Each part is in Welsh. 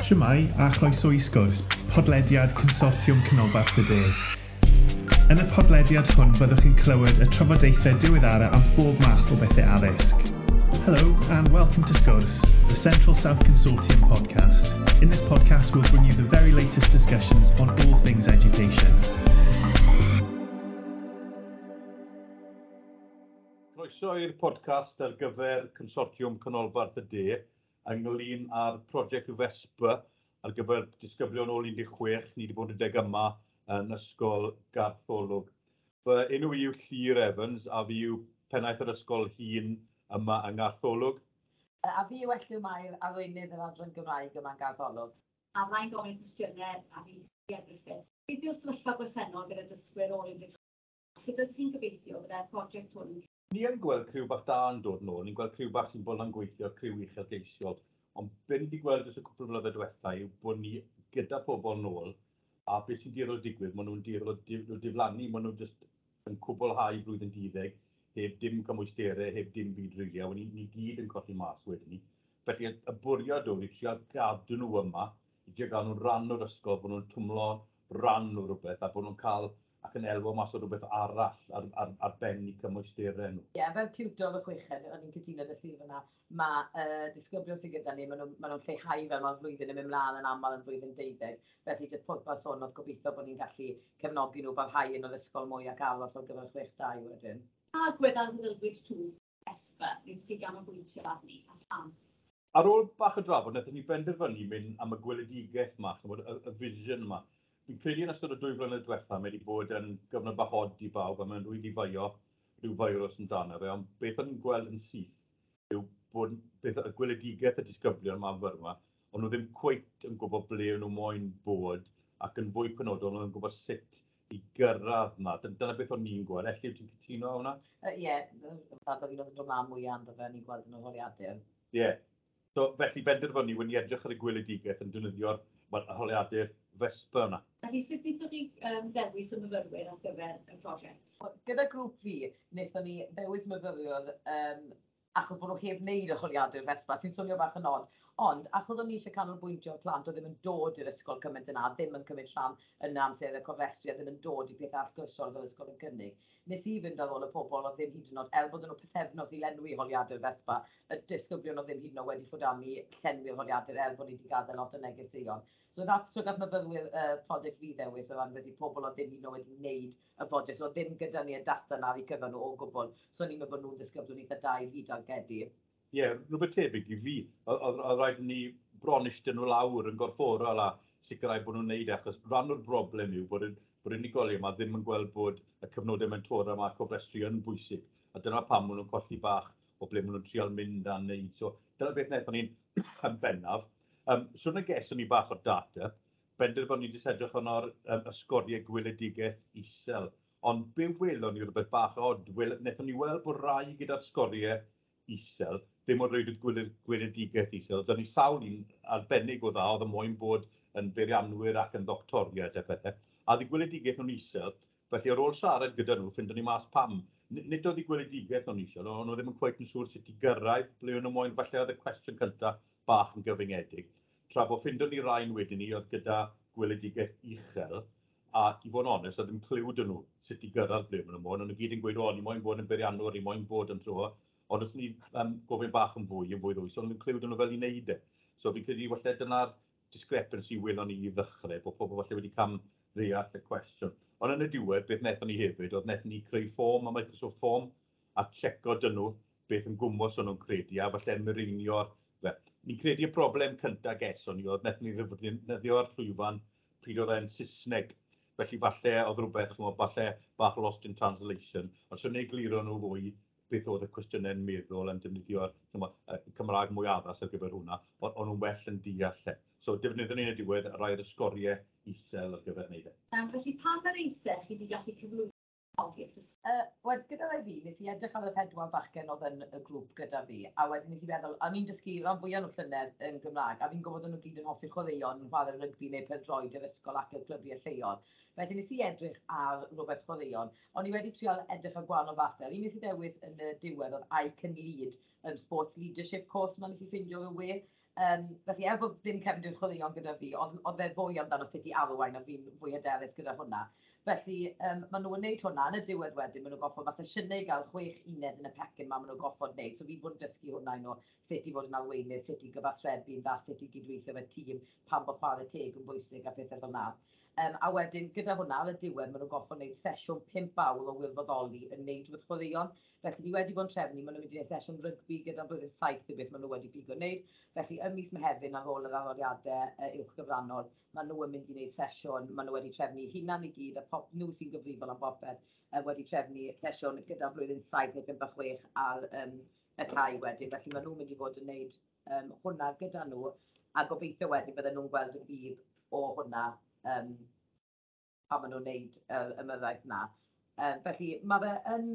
Shwmae a chroeso i sgwrs, podlediad Consortiwm Canolbarth y De. Yn y podlediad hwn byddwch chi'n clywed y trafodaethau diweddara am bob math o bethau addysg. Hello and welcome to Sgwrs, the Central South Consortium podcast. In this podcast we'll bring you the very latest discussions on all things education. Croeso i'r podcast ar gyfer Consortiwm Canolbarth y De ynglyn â'r prosiect Vespa ar gyfer disgyblion ôl 16. Ni wedi bod yn deg yma yn Ysgol Gartholwg. Fy enw i yw Llyr Evans a fi yw pennaeth yr ysgol hŷn yma yng Ngartholwg. A fi yw Elliw Mair, arweinydd yr adran Gymraeg yma yn Gartholwg. A fydda i'n gofyn cwestiynau a fi Sia Griffith. Beth yw'r sefyllfa bresennol gyda dysgwyr ôl 16? Sut ydych chi'n gobeithio byddai'r prosiect hwn yn Ni yn gweld criw bach da yn dod nôl, ni'n gweld criw bach sy'n bod yn gweithio, criw uchelgeisiol. Ond be ni wedi gweld dros y cwpl o flynyddoedd diwetha yw bod ni gyda pobl nôl, a beth sy'n dueddol o digwydd, maen nhw'n dueddol o diflannu, maen nhw jyst yn cwblhau blwyddyn 12, heb dim cymwysterau, heb dim byd rili, a ni, ni gyd yn colli mas wedyn ni. Felly y bwriad oedd i trial gadw nhw yma, i trial gael nhw'n rhan o'r ysgol, bod nhw'n twmlo rhan o rhywbeth, a bod nhw'n cael ac yn elwa mas o rhywbeth arall ar ben eu cymwysterau nhw. Ie, yeah, fel tiwtor y chweched, o'n i'n cytuno â Llyr fyna, mae disgyblion sydd gyda ni, maen nhw'n ma nhw lleihau fel mae'r flwyddyn yn mynd mlaen yn aml yn flwyddyn 12. Felly, jyst pwrpas hwn oedd gobeithio bod ni'n gallu cefnogi nhw barhau yn yr ysgol mwy ac aros ar gyfer 6-2 wedyn. Pa agwedd ar aelwyd twf Vespa wnaethoch chi ganolbwyntio arni a pham? Ar ôl bach o drafod, wnaethon ni benderfynu mynd am y gweledigaeth yma, chimod, y vision yma. Fi'n credu yn ystod y 2 flynedd diwetha, mae wedi bod yn gyfnod bach od i bawb, a mae'n rhwydd i feio rhyw feirws amdano fe, ond beth o'n i'n gweld yn syth yw bod beth, y gweledigaeth y disgyblion yma yn fyrma, ond nhw ddim cweit yn gwybod ble o'n nhw moyn bod, ac yn fwy penodol, nhw ddim yn gwybod sut i gyrraedd yna. Dyna beth o'n i'n gweld. Elliw, ti'n cytuno â hwnna? Ie, fath o fi'n oedd yn dod mlaen mwy amdano fe, ni'n gweld yn yr holiadur. Ie. Yeah. So, felly benderfynu, wedi edrych ar y gweledigaeth yn defnyddio'r holiadur Vespa yna. Felly, sut wnaethoch chi ddewis y myfyrwyr ar gyfer y prosiect? Gyda grŵp fi, wnaethon ni ddewis myfyriwr achos bod nhw heb wneud y holiadur Vespa, sy'n swnio bach yn od. Ond, achos o'n i eisiau canolbwyntio ar plant oedd ddim yn dod i'r ysgol cymaint yna, ddim yn cymryd rhan yn amser y cofrestru, a ddim yn dod i pethau allgyrsiol fel ysgol yn cynnig, nes i fynd ar ôl y pobl oedd ddim hyd yn oed, er bod nhw pythefnos i lenwi holiadur Vespa, y disgyblion oedd ddim hyd yn oed wedi ffwdannu llenwi'r holiadur er bod ni wedi gadael lot o negeseuon. So nath myfyrwyr prosiect fi ddewis o ran felly pobl oedd ddim hyd yn oed wedi wneud y prosiect, so ddim gyda ni y data na i cyfer nhw o gwbl, so ni'n meddwl bod nhw'n disgyblion eitha da i fi dargedu. Ie, yeah, rhywbeth tebyg i fi. Oedd rhaid i ni bron eistedd nhw lawr yn gorfforol a sicrhau bod nhw'n neud e, achos rhan o'r broblem yw bod bod unigolion yma ddim yn gweld bod y cyfnodau mentora yma cofrestru yn bwysig. A dyna pam maen nhw'n colli bach o ble maen nhw'n trial mynd a neud. So dyna beth wnaethon ni'n yn bennaf. So na geson ni bach o'r data, benderfynu jyst edrych arno'r y sgoriau gweledigaeth isel. Ond be welon ni rhywbeth bach od, wnaethon ni weld bod rai gyda'r sgoriau isel, ddim ond rhaid y gweledigaeth isel. Dyna ni sawl un arbennig o dda, oedd y moyn bod yn beirianwyr ac yn ddoctoriaid a pethau. A oedd y gweledigaeth nhw'n isel, felly ar ôl siarad gyda nhw, ffindon ni mas pam. Nid oedd y gweledigaeth nhw'n isel, ond nhw ddim yn cweit yn siŵr sut i gyrraedd ble o'n nhw moyn. Falle oedd y cwestiwn cyntaf bach yn gyfyngedig. Tra bod ffindon ni rhain wedyn ni oedd gyda gweledigaeth uchel, a i fod yn onest, oedd ddim cliw 'da nhw sut i gyrraedd ble maen nhw moyn. O'n nhw gyd yn gweud, o, ni moyn bod yn beirianwr, ni moyn bod yn so. Ond os ni gofyn bach yn fwy, yn fwy ddwys, ond ddim cliw 'da nhw fel i wneud e. So fi'n credu falle dyna'r discrepancy welon ni i ddechrau, bod pobl falle wedi cam ddeall y cwestiwn. Ond yn y diwedd, beth wnaethon ni hefyd, oedd wnaethon ni creu fform, a Microsoft Form, a checo dyn nhw beth yn gwmws o'n nhw'n credu, a falle mireinio'r fe. Ni'n credu y broblem cyntaf geson ni oedd wnaethon ni ddefnyddio'r llwyfan pryd oedd e'n Saesneg. Felly falle oedd rhywbeth, chimod, falle bach lost in translation, ond swn i'n egluro nhw fwy beth oedd y cwestiynau'n meddwl yn defnyddio'r Cymraeg mwy addas ar gyfer hwnna, ond o'n nhw'n well yn deall e. So defnyddion ni yn y diwedd rai o'r sgoriau isel ar gyfer wneud e. Felly pa mor eithaf chi wedi gallu cyflwyno i'r dysgu? Wel, gyda rai fi, nes i edrych ar y 4 bachgen oedd yn y grŵp gyda fi, a wedyn nes i feddwl, o'n i'n dysgu rhan fwyaf nhw llynedd yn Gymraeg, a fi'n gwybod o'n nhw gyd yn hoffi chwaraeon, yn chwarae rygbi neu pêl-droed yr ysgol ac i'r clybiau lleol. Felly nes i edrych ar rhywbeth chwaraeon, o'n i wedi trial edrych ar gwahanol fathau. Un nes i ddewis yn y diwedd oedd I Can Lead, Sports Leadership course ma nes i ffindio ar y we. Felly, er bod ddim cefndir chwaraeon gyda fi, oedd e fwy amdano sut i arwain, a fi'n fwy hyderus gyda hwnna. Felly, maen nhw'n gwneud hwnna. Yn y diwedd wedyn, maen nhw'n goffod, mae sesiynau i gael 6 uned yn y pecyn ma, maen nhw'n goffod wneud. So fi bod yn dysgu hwnna i nhw, sut i fod yn arweinydd, sut i gyfathrebu'n dda, sut i gydweithio efo tîm, pam bod chwarae teg yn bwysig a pethau fel 'na. A wedyn, gyda hwnna, ar y diwedd, maen nhw'n goffod wneud sesiwn 5 awr o wirfoddoli yn wneud rhywbeth chwaraeon. Felly, ni wedi bod yn trefnu, maen nhw'n mynd i wneud sesiwn rygbi gyda blwyddyn 7 neu beth maen nhw wedi pigo wneud. Felly, ym mis Mehefin, ar ôl yr arholiadau uwch gyfrannol, maen nhw yn mynd i wneud sesiwn, maen nhw wedi trefnu hunan i gyd, a pop, nhw sy'n gyfrifol am bopeth, wedi trefnu sesiwn gyda blwyddyn 7 neu 5 a 6 ar y cae wedyn. Felly, maen nhw'n mynd i fod yn wneud hwnna gyda nhw, a gobeithio wedyn bydden nhw'n gweld y budd o hwnna pan maen nhw'n wneud yr ymyrraeth 'na. Felly mae fe yn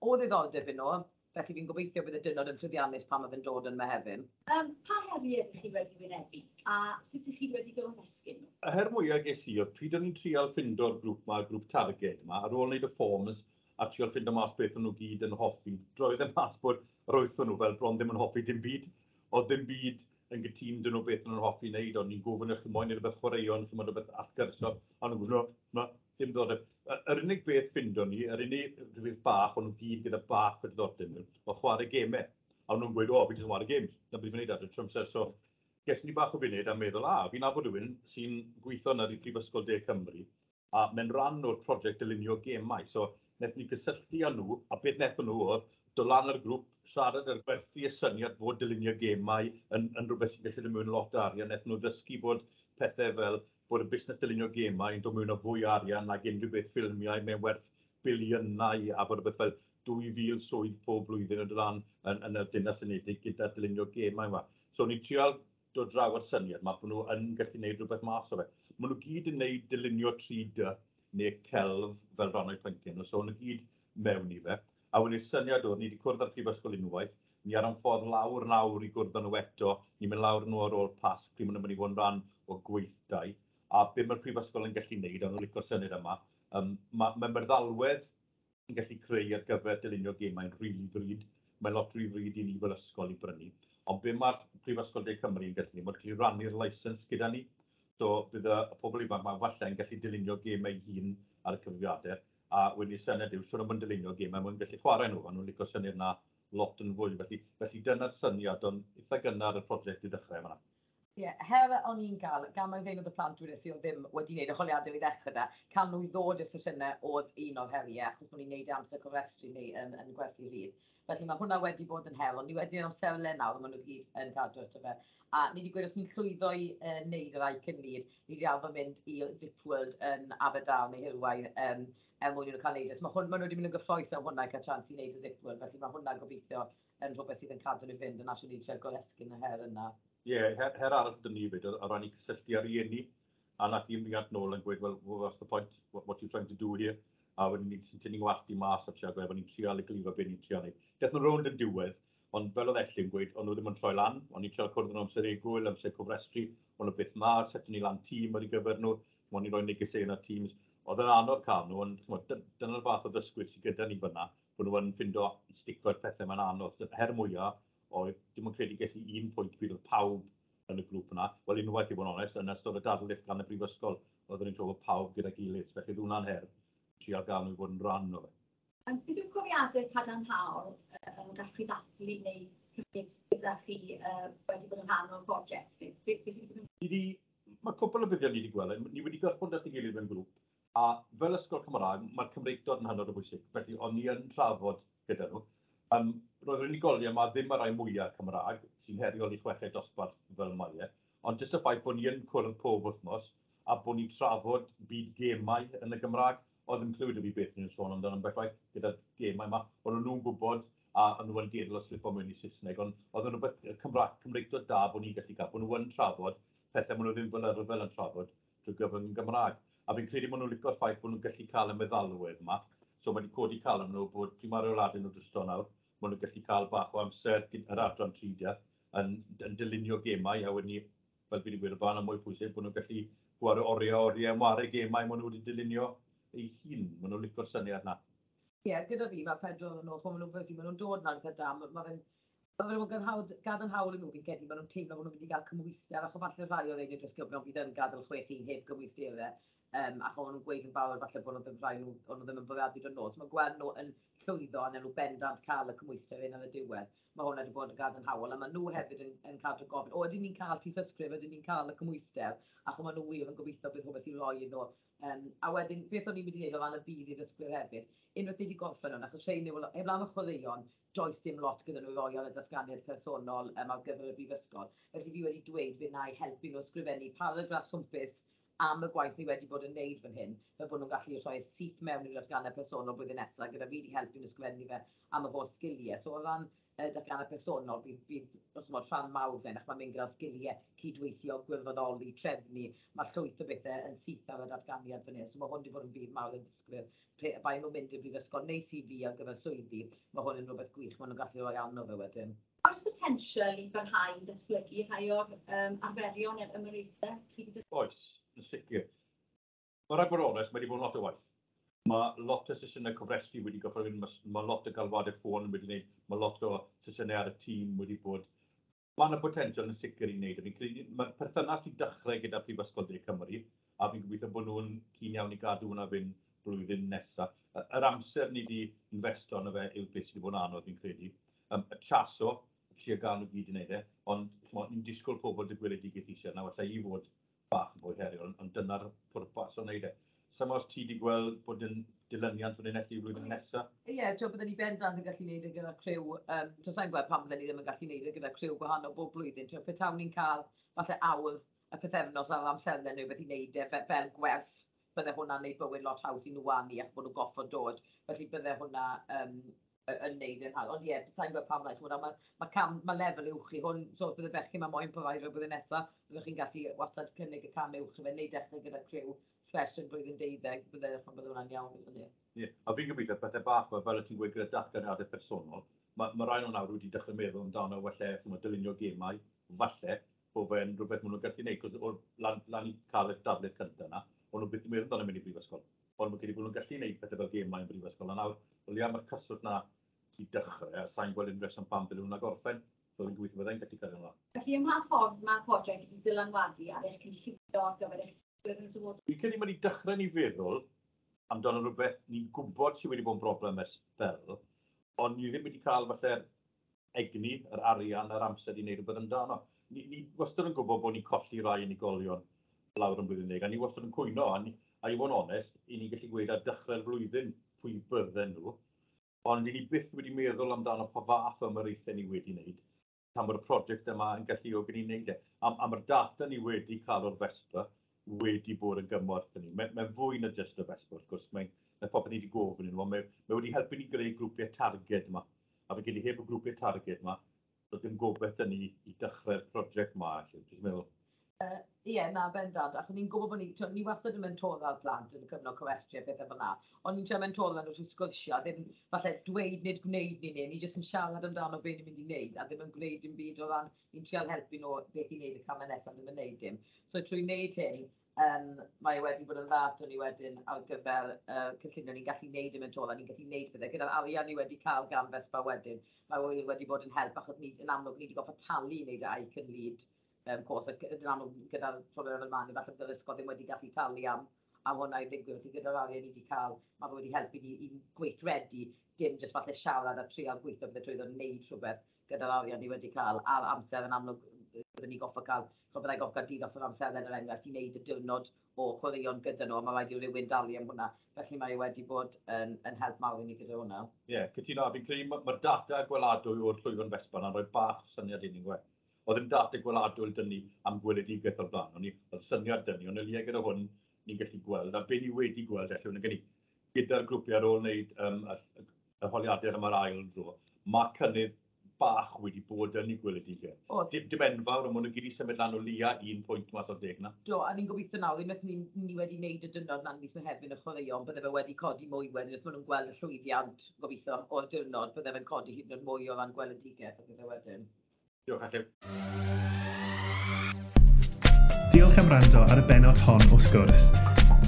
o ddiddordeb i nhw, felly fi'n gobeithio bydd y diwrnod yn llwyddiannus pan mae fe'n dod yn Mehefin. Pa heriau ydych chi wedi wynebu a sut ydych chi wedi goresgyn nhw? Y her mwyaf ges i oedd pryd o'n i'n trial ffindo'r grŵp 'ma, y grŵp targed 'ma, ar ôl wneud y forms a trial ffindo mas beth o'n nhw gyd yn hoffi, droedd e mas bod yr wyth o'n nhw fel bron ddim yn hoffi dim byd. Oedd ddim byd yn gytûn 'da nhw beth o'n nhw'n hoffi wneud, o'n i'n gofyn, "Chi moyn neud rhywbeth chwaraeon, chi moyn rhywbeth allgyrsiol?" A nhw'n gweud, "No, na, dim diddordeb." Yr unig beth ffindo ni, yr unig rhywbeth bach o'n nhw gyd gyda bach o diddordeb mewn, oedd chwarae gemau. A o'n nhw'n gweud, "O, fi jyst yn chwarae games, na beth fi'n neud ar y trwy amser." So, ges ni bach o funud a meddwl, a, fi'n nabod rhywun sy'n gweithio yna i Prifysgol De Cymru, a mae'n rhan o'r prosiect dylunio gemau. So, wnaethon ni gysylltu â nhw, a beth wnaethon nhw oedd dod lan ar y grŵp, siarad ar gwerthu y syniad bod dylunio gemau yn rhywbeth sy'n gallu dod mewn lot o arian. Wnaethon nhw ddysgu bod pethau fel bod y busnes dylunio gemau yn dod mewn â fwy o arian nag unrhyw beth ffilmiau, mae'n werth biliynau, a bod rhywbeth fel 2,000 swydd pob blwyddyn yn dod lan yn y Deyrnas Unedig gyda dylunio gemau yma. So ni'n trial dod draw ar syniad yma bod nhw yn gallu gwneud rhywbeth mas o fe. Maen nhw gyd yn gwneud dylunio 3D neu celf fel rhan o'i phynciau nhw, so maen nhw gyd mewn i fe. A wedyn syniad oedd, ni wedi cwrdd â'r prifysgol unwaith, ni ar ein ffordd lawr nawr i gwrdd â nhw eto, ni'n mynd lawr nhw ar ôl Pasg, pryd maen nhw'n mynd i fod yn rhan o gweithdai. A be mae'r prifysgol yn gallu gwneud, a nhw'n licio'r syniad yma, mae meddalwedd yn gallu creu ar gyfer dylunio gemau'n rili ddrud. Mae'n lot rhy ddrud i ni fel ysgol i brynu. Ond be mae'r Prifysgol De Cymru yn gallu gwneud, mae'n gallu rannu'r licence gyda ni. So bydd y pobl ifanc yma falle yn gallu dylunio gemau hun ar y cyfrifiadur. A wedyn y syniad yw, siwr o fod yn dylunio gemau, maen nhw'n gallu chwarae nhw, a nhw'n licio syniad yna lot yn fwy. Felly dyna'r syniad, ond eitha gynnar y prosiect i ddechrau fan'na. Ie, yeah, her o'n i'n gael, gan mai fein oedd y plant dweud i oedd ddim wedi gwneud y holiadur i ddechrau da, cael nhw i ddod i'r sesiynau oedd un o'r heriau, achos bod ni'n gwneud e amser cofrestru neu yn gwerthu rhydd. Felly mae hwnna wedi bod yn her, ond ni wedi amserlen nawr, maen nhw gyd yn cadw ato fe. A ni wedi gweud os ni'n llwyddo i wneud yr I Can Lead, ni wedi arfer mynd i Zip World yn Aberdâr neu Hirwaun er mwyn i nhw cael neud e. So mae nhw wedi mynd yn gyffrous am hwnna i cael chance i wneud y Zip World, felly mae hwnna gobeithio yn rhywbeth sydd yn cadw nhw fynd, yn asio ni eisiau goresgyn y her yna. Ie, yeah, her arall dyn ni fyd, o ran i cysylltu â rieni, a nath un riant nôl yn gweud, "Well, what's the point, what are you trying to do here?" A wedyn ni sy'n tynnu ngwallt i mas a trio gweud, ni'n trial egluro beth ni'n trial neud. Daeth nhw rownd yn diwedd, ond fel oedd Elli'n gweud, o'n nhw ddim yn troi lan, o'n i'n trial cwrdd nhw amser egwyl, amser cofrestru, o'n nhw byth 'ma, setio ni lan tîm ar ei gyfer nhw, o'n i'n rhoi negeseuon ar Teams. Oedd yn anodd cael nhw, ond dyna'r fath o ddysgwyr sydd gyda ni fyna, bod nhw yn ffindo stico'r pethau mae'n anodd. Her mwyaf oedd, dim ond credu ges i un pwynt pryd oedd pawb yn y grŵp yna. Wel, unwaith i fod yn onest, yn ystod y darlith gan y brifysgol, oedden ni'n trafod pawb gyda'i gilydd. Felly oedd hwnna'n her, trial gael nhw i fod yn rhan o fe. Beth yw'r profiadau cadarnhaol gallwch chi ddathlu neu cymryd gyda chi wedi bod yn rhan o'r prosiect? Mae cwpl o buddion ni wedi gweld. Ni wedi gorfod at ei gilydd mewn grŵp, a fel ysgol Cymraeg, mae'r Cymreictod yn hynod o bwysig. Felly, o'n ni yn trafod gyda nhw. Roedd yr unigolion yma ddim y rai mwyaf Cymraeg, sy'n heriol i chweched dosbarth fel mae e, ond jyst y ffaith bod ni yn cwrdd pob wythnos a bod ni'n trafod byd gemau yn y Gymraeg, oedd yn clywed i fi beth ni'n sôn amdano ambell waith gyda'r gemau yma. O'n nhw'n gwybod a o'n nhw yn dueddol o slipo mewn i Saesneg, ond oedd yn rhywbeth Cymraeg, Cymreictod da bod ni'n gallu cael, bod nhw yn trafod pethau maen nhw ddim fel arfer yn trafod drwy gyfrwng yn Gymraeg. A fi'n credu bod nhw'n licio'r ffaith bod nhw'n gallu cael y meddalwedd yma. So mae wedi codi calon nhw bod pryd mae'r rheoliadau nhw drosto nawr, maen nhw'n gallu cael bach o amser yr adran 3 yn dylunio gemau, a wedyn ni, fel fi wedi gweud o blaen, yn mwy pwysig, bod nhw'n gallu gwario oriau oriau yn ware gemau maen nhw wedi dylunio eu hun. Maen nhw'n licio'r syniad na. Ie, yeah, gyda fi, mae pedwar yn nhw, maen nhw'n maen nhw'n dod na'n eitha da, mae fe'n Mae fe'n gadarnhaol i nhw, fi'n credu, maen nhw'n teimlo bod nhw'n mynd i gael cymhwyster, achos falle rhai o'r ein disgyblion fydd yn gadael 6-1 heb gymwysterau, achos o'n nhw'n gweud yn barod falle bod nhw ddim rhai nhw, o'n nhw ddim yn bwriadu dod nôl. So mae gweld nhw yn llwyddo a nhw bendant cael y cymhwyster hyn ar y diwedd. Mae hwnna wedi bod yn gadarnhaol, a maen nhw hefyd yn cadw gofyn, o, ydyn ni'n cael tystysgrif, ydyn ni'n cael y cymhwyster, achos maen nhw wir yn gobeithio bydd rhywbeth i roi i nhw. A wedyn, beth o'n i'n mynd i wneud o ran y budd i ddysgwyr hefyd, unwaith ni wedi gorffen hwn, achos rhein yw, heblaw am y chwaraeon, does dim lot gyda nhw i roi ar y datganiad personol ar gyfer y brifysgol. Felly fi wedi dweud fe wna i helpu nhw ysgrifennu paragraff swmpus am y gwaith ni wedi bod yn neud fan hyn, fel bod nhw'n gallu rhoi syth mewn i'r datganiad personol blwyddyn nesaf, gyda fi wedi helpu nhw ysgrifennu fe am y holl sgiliau. So o ran datganiad personol, bydd rhan mawr fan, ac mae'n mynd gyda'r sgiliau cydweithio, gwirfoddoli, trefnu, mae llwyth o bethau yn syth ar y datganiad fan hyn. So mae hwn wedi bod yn budd mawr i'r dysgwyr. Pe bai nhw'n mynd i'r brifysgol neu CV ar gyfer swyddi, mae hwn yn rhywbeth gwych, maen nhw'n gallu rhoi arno fe wedyn. Oes potensial i barhau i ddatblygu rhai o'r arferion neu'r ymyraethau? Oes, yn sicr. Mae rhaid bod yn onest, mae wedi bod yn lot o waith. Mae lot o sesiynau cofrestru wedi gorfod mynd, mae lot o galwadau ffôn wedi gwneud, mae lot o sesiynau ar y tîm wedi bod. Mae yna potensial yn sicr i wneud. Fi'n credu, mae'r perthynas i dechrau gyda Prifysgol De Cymru, a fi'n gobeithio bod nhw'n keen iawn i gadw hwnna fynd blwyddyn nesaf. Yr amser ni wedi investo arno fe yw beth sydd wedi bod yn anodd, fi'n credu. Y chaso, trio gael nhw gyd i wneud e, ond ni'n disgwyl pobl dy gweledigaeth eisiau, nawr allai i fod bach yn fwy heriol, ond dyna'r pwrpas o wneud e. Sam os ti wedi gweld bod yn dilyniant fan hyn elli flwyddyn nesaf? Ie, yeah, byddwn ni bendant yn gallu gwneud e gyda criw, sa'n gweld pam byddwn ni ddim yn gallu gwneud e gyda criw gwahanol bob blwyddyn. Pe tawn ni'n cael falle awr y pythefnos ar amserlen neu beth i wneud e fel gwers, bydde hwnna'n gwneud bywyd lot haws i nhw a ni, achos bod nhw'n goffod dod. Felly bydde hwnna yn neud yn hawdd. Ond ie, sa'n gweld pam lai, mae lefel uwch i hwn, so bydde bechgyn mae moyn provider blwyddyn nesaf, byddwch chi'n gallu wastad cynnig y cam uwch i fe, neu dechrau gyda criw fresh yn blwyddyn 12, bydde hwnna'n iawn gyda ni. Ie, a fi'n gobeithio pethau bach fel y ti'n gweud gyda datganiadau personol, mae rai nhw nawr wedi dechrau meddwl amdano falle, dylunio gemau, falle, bod fe'n rhywbeth maen nhw'n gallu gwneud, cos o'r lan i cael y darlith cyntaf yna, o'n nhw byth yn meddwl amdano mynd i brifysgol. Ond mae'n credu bod nhw'n gallu gwneud pethau fel gemau yn brifysgol, a nawr, o leia mae'r cyswllt na i dechrau, a sa'n gweld unrhyw reswm pam ddylen nhw'n gorffen, so fi'n gobeithio byddai'n gallu cario ymlaen. Felly, ym mha ffordd mae'r prosiect wedi dylanwadu ar eich cynllunio ar gyfer eich dysgwyr yn y dyfodol? Fi'n credu mae wedi dechrau ni feddwl amdano rhywbeth ni'n gwybod sydd wedi bod yn broblem ers sbel, ond ni ddim wedi cael falle'r egni, yr arian a'r amser i wneud rhywbeth amdano. Ni wastad yn gwybod bod ni'n colli rai unigolion lawr yn blwyddyn 10, a ni wastad yn cwyno, a i fod yn onest, i ni'n gallu gweud ar dechrau'r flwyddyn pwy bydden nhw, ond i ni byth wedi meddwl amdano pa fath o ymyraethau ni wedi wneud, pan bod y prosiect yma yn galluogi ni wneud e. A mae'r data ni wedi cael o'r Vespa wedi bod yn gymorth i ni. Mae'n fwy na jyst y Vespa, wrth gwrs, mae popeth ni wedi gofyn i nhw, ond mae wedi helpu ni greu grwpiau targed yma. A fe gyd heb y grwpiau targed yma, doedd dim gobaith 'da ni i dechrau'r prosiect yma, dwi'n meddwl. Ie, na, bendant. Achos ni'n gwybod bod ni wastad yn mentora'r plant yn y cyfnod cofrestru a pethau fel 'na. Ond ni'n trio mentora nhw trwy sgwrsio, ddim falle dweud nid gwneud ni neu, ni jyst yn siarad amdano be ni'n mynd i wneud, a ddim yn gwneud dim byd o ran, ni'n trial helpu nhw beth i wneud y camau nesaf, ddim yn wneud dim. So trwy wneud hyn, mae wedi bod yn dda ato ni wedyn ar gyfer cynllunio, ni'n gallu wneud y mentora, ni'n gallu wneud pethau. Gyda'r arian ni wedi cael gan Vespa wedyn, mae wedi bod yn help, achos ni, yn amlwg ni wedi gorfod talu i wneud y I Can Lead course, ac yn amlwg gyda'r problem fel 'ma, ni falle bydd yr ysgol ddim wedi gallu talu am hwnna i ddigwydd, felly gyda'r arian ni wedi cael, mae fe wedi helpu ni i gweithredu, dim jyst falle siarad a trial gweithio bydde trwyddo wneud rhywbeth gyda'r arian ni wedi cael, a'r amser yn amlwg byddwn ni goffo cael, byddai goffo cael dydd off yr amserlen er enghraifft i wneud y diwrnod o chwaraeon gyda nhw, a mae rhaid i rywun dalu am hwnna, felly mae wedi bod yn help mawr i ni gyda hwnna. Ie, yeah, cytuno, fi'n credu mae'r data gweladwy o'r llwyfan Vespa yna'n rhoi bach o syniad i ni'n gweud. Oedd ddim data gweladwy 'da ni am gweledigaeth o'r blaen, oedd syniad 'da ni, ond o leia gyda hwn ni'n gallu gweld, a be ni wedi gweld felly, hwn gyda'r grwpiau ar ôl wneud y holiadur am yr ail dro, mae cynnydd bach wedi bod yn ei gweledigaeth. Dim enfawr, ond maen nhw gyd i symud lan o leia 1 pwynt mas o'r 10 na. Do, a ni'n gobeithio nawr, unwaith ni wedi wneud y diwrnod na'n mis Mehefin y chwaraeon, bydde fe wedi codi mwy wedyn, wrth maen nhw'n gweld y llwyddiant, gobeithio, o'r diwrnod, bydde fe'n codi hyd yn oed mwy o ran gweledigaeth, bydde fe wedyn. Diolch, Elliw. Diolch am wrando ar y bennod hon o Sgwrs.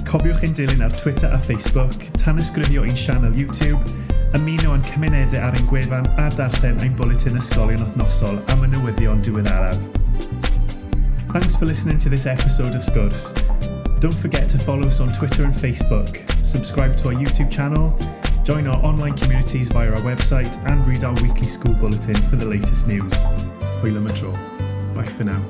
Cofiwch ein dilyn ar Twitter a Facebook, tanysgrifio i'n sianel YouTube, Ymuno â'n cymunedau ar ein gwefan a darllen ein bwletin ysgolion wythnosol am y newyddion diweddaraf. Thanks for listening to this episode of Sgwrs. Don't forget to follow us on Twitter and Facebook, subscribe to our YouTube channel, join our online communities via our website, and read our weekly school bulletin for the latest news. Hwyl am y tro. Bye for now.